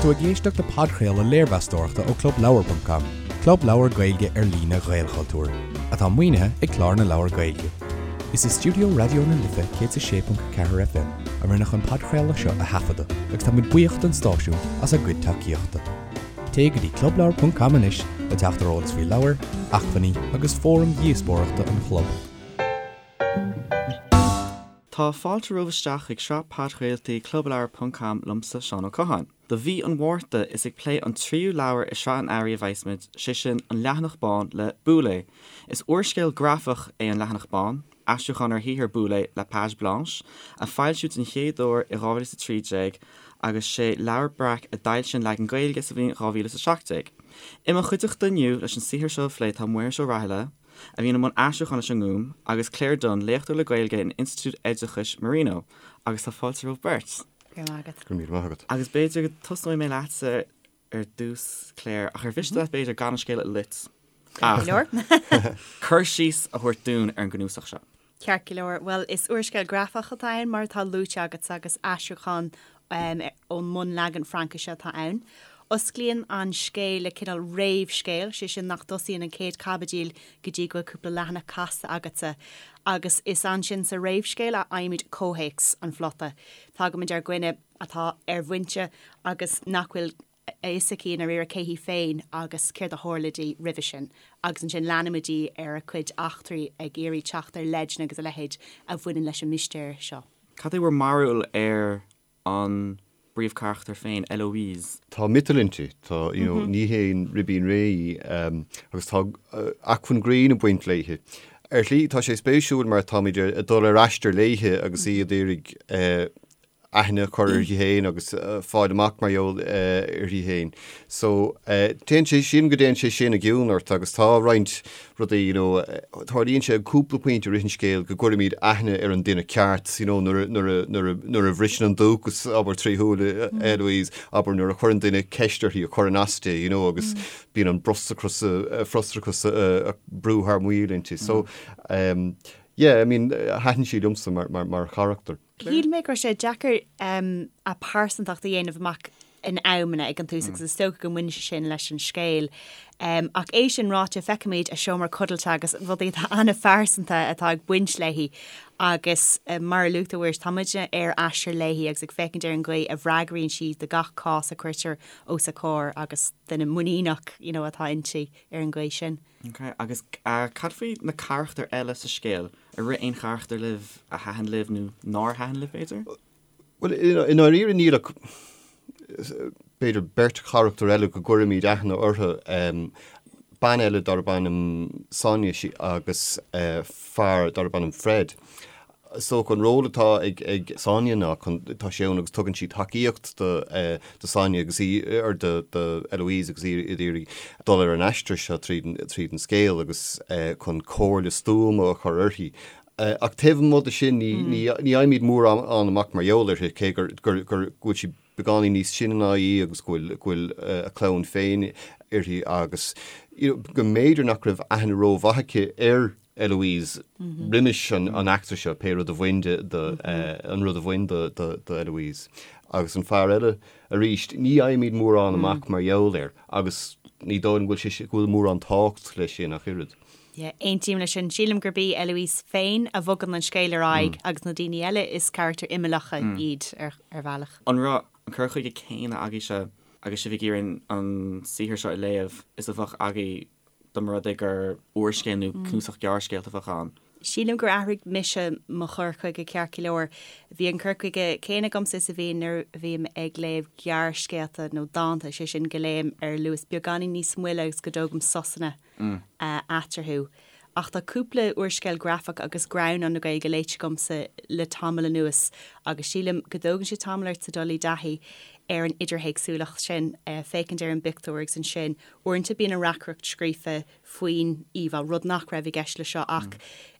tú ag éisteacht le podchraoladh léirmheastóireachta ó ClubLeabhar.com, club leabhar Gaeilge ar líne Ghaelchultúir, atá maoinithe ag Clár na Leabhar Gaeilge. Is i stiúideo Raidió na Life 106.4 FM a rinneadh an podchraoladh seo a thaifeadadh agus tá muid buíoch don stáisiún as a gcuid tacaíochta. Téigh go dtí clubleabhar.com anois le teacht ar eolas faoi leabhair, acmhainní agus fóraim dhíospóireachta an chlub. Tá fáilte romhaibh isteach chuig sraith podchraoltaí Clubleabhar ponc com liomsa, Seán Ó Catháin. Do mhí an Mhárta, is ag plé an tríú leabhar i sraith an Earraigh a bheas muid, sé sin An Leathanach Bán le Boulez. Is úrscéal grafach é An Leathanach Bán, aistriúchán ar shaothar Boulez, La Page Blanche, a foilsíodh den chéad uair i 2013 agus sé Leabhar Breac a d'fhoilsigh an leagan Gaeilge sa bhliain 2017. I mo chuideachta inniu leis an saothar seo a phlé tá Muiris Ó Rathaille, a bhíonn i mbun aistriúcháin leis an nGúm, agus Claire Dunne, léachtóir le Gaeilge in Institiúid Oideachais Marino, agus tá fáilte romhaibh beirt. Go raibh maith agat. Go raibh míle maith agat. Agus b'fhéidir go tosnóidh mé leatsa ar dtús, Claire, ach ar mhiste leat b'fhéidir gan an scéal a loit Ceart go leor. cur síos a thabhairt dúinn ar an gcnuasach seo. Ceart go leor. Bhuel, is úrscéal grafach atá ann, mar atá luaite agat, agus aistriúchán ón mbunleagan Fraincise atá ann. Osclaíonn an scéal le cineál réamhscéil, sé sin nach dtosaíonn an chéad chaibidil go dtí go bhfuil cúpla leathanach casta agatsa, agus is ansin sa réamhscéal a fhaighimid comhthéacs an phlota. Tagaimid ar dhuine atá ar bhoinnte agus nach bhfuil a fhios aici i ndáiríre cé hí féin agus céard a tharla di roimhe sin agus ansin leanaimid í ar a cuid eachtraí ag iarraidh teacht ar leideanna agus a leithéid a bhaineann leis an mistéir seo. Cad é bhur mbarúil ar an bpríomhcharachtar féin, Eloise? Tá miotal inti, tá, you know, ní haon ribín réidh í agus tá acmhainn grinn ag baint léithe. Ar shlí, tá sé spéisiúil mar táimid ag dul ar aistear léithe agus í ag iarraidh aithne a chur uirthi féin agus fáil amach mar gheall uirthi féin. So, téann sé, sílim go dtéann sé sin i gcion ort agus tá roinnt rudaí, you know, tarlaíonn sé ag cúpla pointe i rith an scéil go gcuirimid aithne ar an duine ceart, you know, nuair a, nuair a, nuair a, nuair a bhriseann an dúchas, abair, trí shúile Eloise, abair, nuair a chuireann duine ceist uirthi a chuireann as di, you know, agus bíonn an frustrachas, frustrachas ag brú thar maoil inti. So, yeah, I mean, thaitin sí liomsa mar, mar, mar charachtar. Shíl mé go raibh sé deacair a pearsantacht a dhéanamh amach in amanna ag an tús agus is dócha go mbaineann sé sin leis an scéal. Ach é sin ráite, feicimid a seomra codlata agus rudaí atá an-phearsanta atá ag baint léi agus mar a luaigh tú, a Mhuiris, tá muidne ar aistear léi agus ag féachaint ar an gcaoi a bhfreagraíonn sí do gach cás a cuirtear os a comhair agus duine muiníneach you know atá inti ar an gcaoi sin. Ok, agus cad faoi na carachtair eile sa scéal? Ar rith aon charachtar libh a thaitin libh nó nár thaitin libh, b'fhéidir? Bhuel, i ndáiríre níl ach b'fhéidir beirt charachtar eile go gcuirimid aithne orthu, bean eile darb ainm Sonia agus fear darb ainm Fred. So an ról atá ag Sonia ná chun, tá sí ann agus tugann sí tacaíocht do do Sonia agus í, or do do Eloise agus í ag iarraidh dul ar an aistear seo tríd an tríd an scéal agus chun comhairle stuama a chur uirthi. Ach taobh amuigh de sin ní ní ní fhaighimid mórán amach mar gheall uirthi cé gur gur gur go bhfuil sí beagáinín níos sine ná í agus go bhfuil go bhfuil a clann féin uirthi agus you know go mb'fhéidir nach raibh aithne rómhaith aici ar Eloise roimis an eachtra seo, pé rud a bhain de, an rud a bhain do Eloise. Agus an fear eile, arís, ní fhaighimid mórán amach mar gheall air agus ní dóigh liom go bhfuil sé, go bhfuil mórán tábhacht leis sin ach oiread. Yeah, aontaím leis sin. Sílim gurb í Eloise féin a bhogann an scéal ar aghaidh agus na daoine eile is carachtair imeallacha iad ar bhealach. An raibh an cur chuige céanna agaibhse agus sibh ag iarraidh an saothar seo a léamh is a bheadh agaibh dá mba rud é gur úrscéal nó cnuasach gearrscéalta a bheadh ann. Sílim gur athraigh mise mo chur chuige ceart go leor. Bhí an cur chuige céanna agamsa is a bhíonn nuair a bhím ag léamh gearrscéalta nó dánta, sé sin go léim ar luas beagáinín níos moille agus go dtógaim sosanna eatarthu. Ach tá cúpla úrscéal grafach agus greannán na Gaeilge léite agamsa le tamall anuas agus sílim go dtógann sé tamall ortsa dul i dtaithí ar an idirthéacsúlacht sin, féachaint ar an bpictiúr agus ansin Uaireanta bíonn an reacaireacht scríofa faoin íomhá, rud nach raibh i gceist le seo ach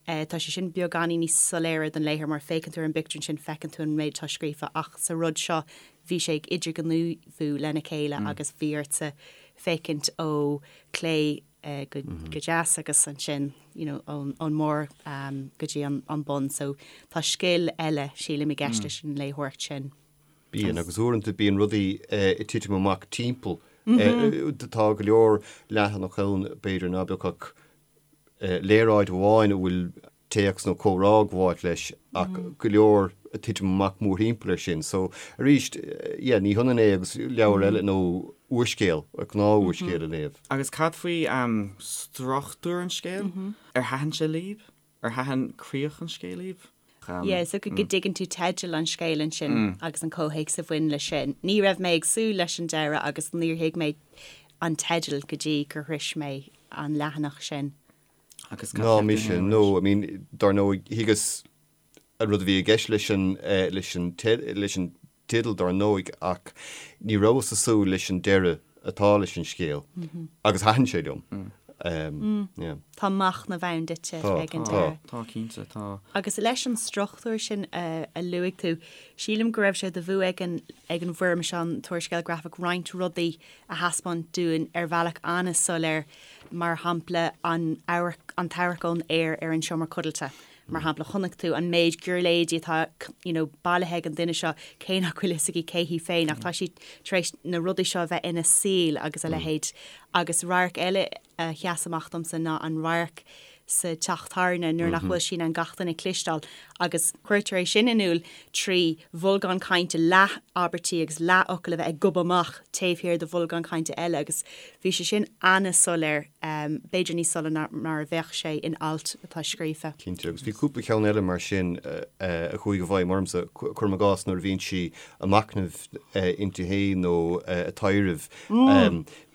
tá sé sin beagáinín níos soiléire don léitheoir mar féachann tú ar an bpictiúr ansin feiceann tú an méid atá scríofa ach sa rud seo bhí sé ag idirghníomhú lena chéile agus bhí ortsa féachaint ó chlé go deas agus ansin you know ón mbarr go dtí an bun so tá scil eile sílim i gceist leis an léitheoireacht sin. Bíonn, agus uaireanta bíonn rudaí ag titim amach timpeall. Tá go leor leathanach ann, b'fhéidir, ná beadh ach léaráid amháin a bhfuil téacs nó comhrá ag gabháilt leis ach go leor ag titim amach mórthimpeall air sin. So, arís, yeah, ní hionann é agus leabhar eile nó úrscéal, gnáth-úrscéal a léamh. Agus cad faoi struchtúr an scéil? Ar thaitin sé libh? Ar thaitin críoch an scéil libh? Yeah, so go dtuigeann tú teideal an scéil ansin agus an comhthéacs a bhain leis sin. Ní raibh mé ag súil leis an deireadh agus níor thuig mé an teideal go dtí gur shrois mé an leathanach sin. Agus cad Ná cheap tú mise, féin, no, I mean, dar ndóigh, thuigeas an rud a bhí i gceist leis an, leis an, leis an teideal dar ndóigh, ach ní rabhas ag súil leis an deireadh atá leis an scéal agus thaitin sé liom. Yeah. Tá machnamh ann duitse Tá, ag an tá. deireadh. Tá, cinnte, tá. Agus leis an struchtúr sin a luaigh tú, sílim go raibh sé de bhua ag an ag an bhfoirm seo, an t-úrscéal grafach, roinnt rudaí a thaispeáint dúinn ar bhealach an-soiléir, mar shampla an amharc, an t-amharc ón aer ar an seomra codlata. Mar shampla, chonaic tú an méid giuirléidí atá you know bailithe ag an duine seo, cé nach bhfuil fhios aici cé hí féin, ach tá sí tar éis na rudaí seo a bheith ina saol agus a leithéid. Agus radharc eile a sheas amach domsa ná an radharc sa teach tábhairne nuair nach bhfuil sí in ann gach duine a chloisteáil agus cuirtear é sin in iúl trí bholgán cainte, leath abairtí agus leath fhocail a bheith ag gobadh amach taobh thiar de bholgán cainte eile agus bhí sé sin an-soiléir, b'fhéidir níos soiléire ná mar a bheadh sé in alt atá scríofa. Cinnte, agus bhí cúpla ceann eile mar sin a chuaigh i bhfeidhm ormsa, cuirim i gcás nuair a bhíonn sí ag machnamh inti féin nó ag taidhreamh.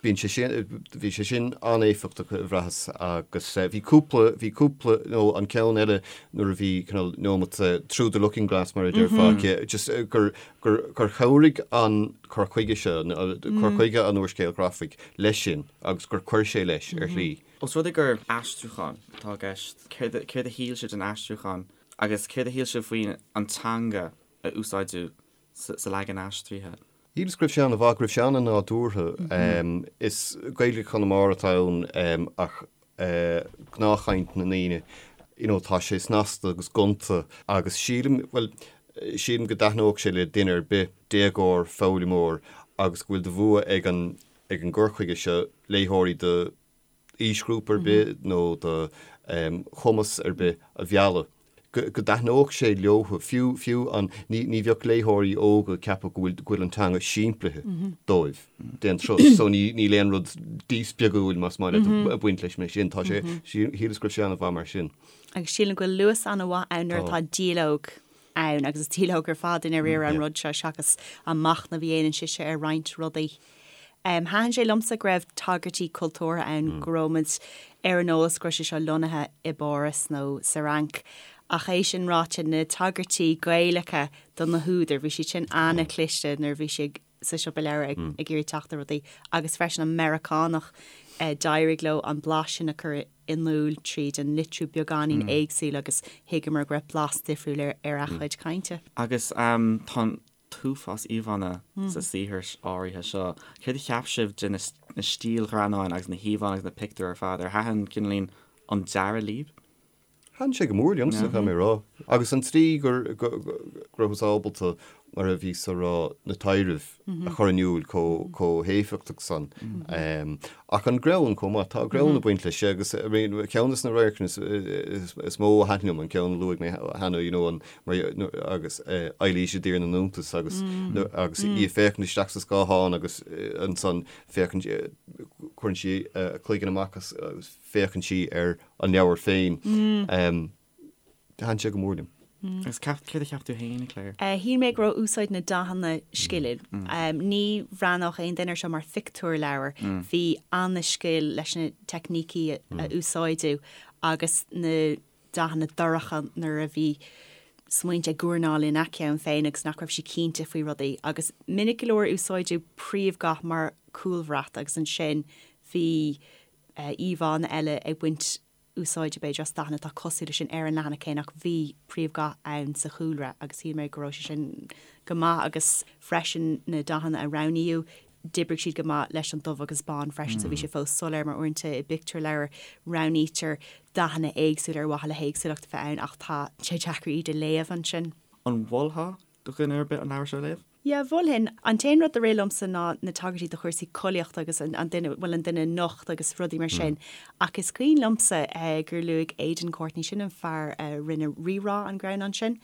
Bíonn sé sin, bhí sé sin an-éifeachtach a bhraitheas agus bhí cúpla, bhí cúpla, nó an ceann eile nuair a bhí cineál neomat through the looking glass mar a déarfá aici, just gur, gur, gur chabhraigh an cur chuige seo, cur chuige an úrscéil ghrafaigh leis sin agus gur chuir sé leis ar shlí. Os rud é gur aistriúchán atá i gceist, céard, céard a shíl sibh den aistriúchán agus céard a shíl sibh faoin an teanga a úsáideadh sa leagan aistrithe. Shíleas go raibh sé an-mhaith, go raibh sé an-nádúrtha. Is Gaeilge Chonamara atá ann ach gnáthchaint na ndaoine, you know, tá sé snasta agus gonta agus sílim, bhuel, sílim go dtaitneodh sé le duine ar bith, déagóir, foghlaimeoir agus go bhfuil de bhua ag an, ag an gcur chuige seo léitheoirí de aoisghrúpa ar bith nó de chumas ar bith a mhealladh, go dtaitneodh sé leo, fiú, fiú an, ní, ní bheadh léitheoirí óga ag ceapadh go bhfuil, go bhfuil an teanga simplithe dóibh d'aon turas. So ní, níl aon rud díspeagúil, más maith leat, ag baint leis mar sin. Tá sé, shíleas go raibh sé an-mhaith mar sin. Agus sílim go bhfuil luas an-mhaith ann nuair atá dialóg ann agus is dialóg ar fad i ndáiríre an rud seo seachas an machnamh a dhéanann sise ar roinnt rudaí. Thaitin sé liomsa go raibh tagairtí cultúrtha ann, go raibh muid ar an eolas go raibh sé seo lonnaithe i bPáras nó sa Fhrainc. Ach é sin ráite, na tagairtí Gaelacha do na húdair, bhí siad sin an-chliste nuair a bhí sí sa siopa leabhar ag iarraidh teacht ar rudaí. Agus freisin an Meiriceánach, d'éirigh leo an blas sin a chur in iúl tríd an litriú beagáinín éagsúil agus thuigeamar go raibh blas difriúil ar a chuid cainte. Agus tá an t-uafás íomhánna sa saothar áirithe seo. Céard a cheap sibh de na stílghreannáin agus na híomhánna agus na pictiúir ar fad? Ar thaitin cineáilín an dearadh libh? Thaitin sé go mór liomsa, caithfidh mé a rá. Agus an tslí go rabhthas ábalta, mar a bhíos a rá, na taidhrimh a chur in iúl chomh héifeachtach san. Ach an greann chomh maith, tá greann ag baint leis agus ceann de na radharcanna is mó a thaitin liom, an ceann a luaigh mé cheana, you know, an agus Eilís i dTír na nIontas agus agus í ag féachaint isteach sa scáthán agus ansan féachann cuireann sí a cloigeann amach agus féachann sí ar an leabhar féin. Thaitin sé go mór liom. Agus céard a cheap tú féin, Claire? Shíl mé go raibh úsáid na dathanna sciliúil. Ní bhreathnódh aon duine air seo mar phictiúrleabhar. Bhí an-scil leis na teicnící a úsáideadh agus na dathanna dorcha nuair a bhí smaointe ag guairneáil ina ceann féin agus nach raibh sí cinnte faoi rudaí. Agus minic go leor úsáideadh príomhdhath mar chúlbhrat agus ansin bhí íomhánna eile ag baint úsáide b'fhéidir as dathanna atá cosúil leis sin ar an leathanach céanna ach bhí príomhdhath ann sa chúlra agus shíl mé go raibh sé sin go maith agus freisin na dathanna a roghnaíodh D'oibrigh siad go maith leis an dubh agus bán freisin so bhí sé fós soiléir mar uaireanta i bpictiúrleabhar roghnaítear dathanna éagsúla ar mhaithe le héagsúlacht a bheith ann ach tá sé deacair iad a léamh ansin. An mholfá do dhuine ar bith an leabhar seo a léamh? Yeah, mholfainn. An t-aon rud a rith liomsa ná na tagairtí do chúrsaí collaíochta agus an duine, bhuel an duine nocht agus rudaí mar sin. Ach is cuimhin liomsa gur luaigh Aidan Courtney, sin an fear a rinne Rí-Rá, an greannán sin,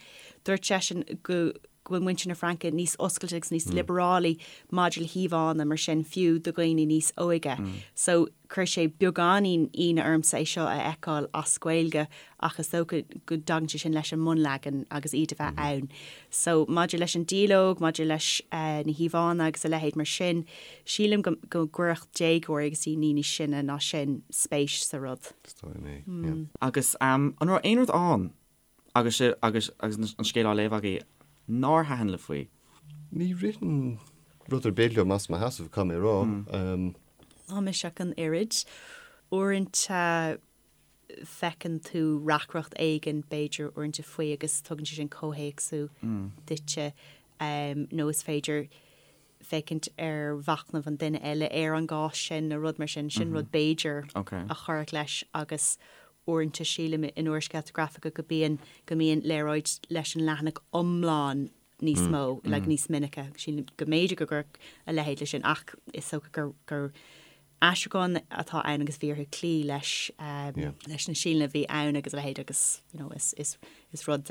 dúirt seisean go go bhfuil muintir na Fraince níos oscailte agus níos liobarálaí maidir le híomhánna mar sin, fiú do dhaoine níos óige. So chuir sé beagáinín ionadh ormsa é seo a fheiceáil as Gaeilge ach is dócha go dtagann sé sin leis an mbunleagan agus iad a bheith ann. So maidir leis an dialóg, maidir leis na híomhánna agus a leithéid mar sin, sílim go go gcuirfeadh déagóirí agus daoine níos sine ná sin spéis sa rud. Is dóigh liom é, yeah. Agus an raibh aon rud ann agus agus agus an scéal á léamh agaibh nár thaitin libh faoi? Ní ritheann rud ar bith liom as mo sheasamh, caithfidh mé a rá. Ná mise ach an oiread. Uaireanta feiceann tú reacaireacht éigin, b'fhéidir, uaireanta faoi agus tugann sé sin comhthéacsú duitse nó is féidir féachaint ar mhachnamh an duine eile ar an gcás sin nó rud mar sin. Sin rud b'fhéidir a chuirfeadh leis agus uaireanta sílim in úrscéalta grafacha go bíonn, go mbíonn léaráid leis an leathanach iomlán níos mó, like níos minice. Sílim go mb'fhéidir go gcuirfeadh a leithéid leis sin ach is dócha gur, gur aistriúchán atá ann agus bhí orthu cloí leis, leis na stíleanna a bhí ann agus a leithéid agus, you know, is, is, is rud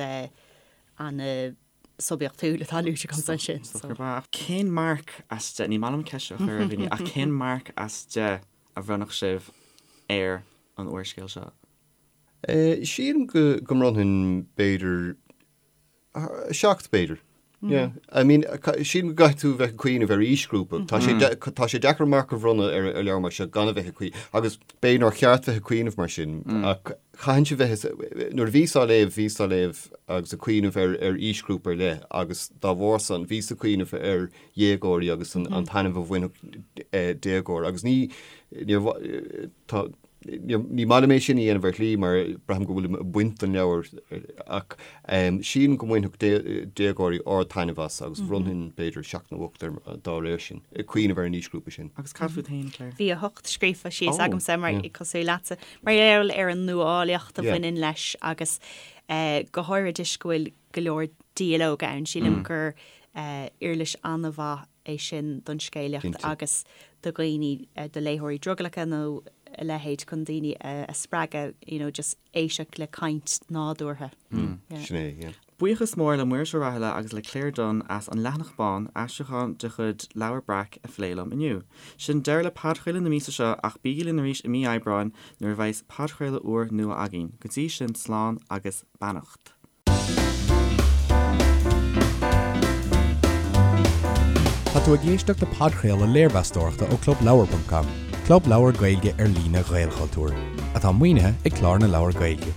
an-suibiachtúil atá luaite agamsa ansin. So. Cén marc as 10, ní maith liom ceist seo a chur ar dhaoine, ach cén marc as 10 a bhronnfadh sibh ar an úrscéal seo? Sílim go, go mbronnfainn b'fhéidir 7 b'fhéidir. Yeah. I mean, sílim go gcaithfidh tú bheith ag cuimhneamh ar aoisghrúpa. Tá sé tá sé deacair marc a bhronnadh ar ar leabhar mar seo gan a bheith ag cuimhneamh. Agus b'fhéidir nár cheart bheith ag cuimhneamh mar sin, ach chaithfinnse bheith nuair a bhíos á léamh, bhíos á léamh agus ag cuimhneamh ar ar aoisghrúpa ar leith agus dá bharr san bhíos ag cuimhneamh ar dhéagóirí agus an an taitneamh a bhainfeadh déagóir agus ní níor tá Ní maith liom é sin a dhéanamh ar shlí mar braithim go bhfuilim ag baint den leabhar ach sílim go mbainfeadh déagóirí ard-taitneamh as agus bhronnfainn b'fhéidir 7 nó 8 air dá réir sin, ag cuimhneamh ar an aoisghrúpa sin. Agus cad fút féin, Claire? Bhí 8 scríofa síos agamsa mar cosúil leatsa, mar gheall ar an nuálaíocht a bhaineann leis agus go háirithe toisc go bhfuil go leor dialóg ann. Sílim gur uirlis an-mhaith é sin don scéalaíocht agus do dhaoine, do léitheoirí drogallacha nó a leithéid chun daoine a spreagadh you know just éisteacht le caint nádúrtha. Sin é, yeah. Buíochas mór le Muiris Ó Rathaille agus le Claire Dunne as An Leathanach Bán, aistriúchán de chuid Leabhar Breac, a phlé liom inniu. Sin deireadh le podchraoladh na míosa seo ach bígí linn arís i mí Aibreáin nuair a bheas podchraoladh úr nua againn. Go dtí sin slán agus beannacht. Tá tú ag éisteacht le podchraoladh léirmheastóireachta ó ClubLeabhar.com, club leabhar Gaeilge ar líne Ghaelchultúir, atá maoinithe ag Clár na Leabhar Gaeilge.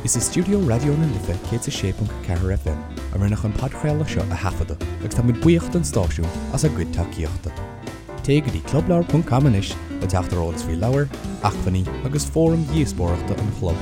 Is i stiúideo Raidió na Life 106.4 FM a rinneadh an podchraoladh seo a thaifeadadh agus táimid buíoch don stáisiún as a gcuid tacaíochta. Téigh go dtí clubleabhar.com anois le teacht ar eolas faoi leabhair, acmhainní agus fóraim dhíospóireachta an chlub.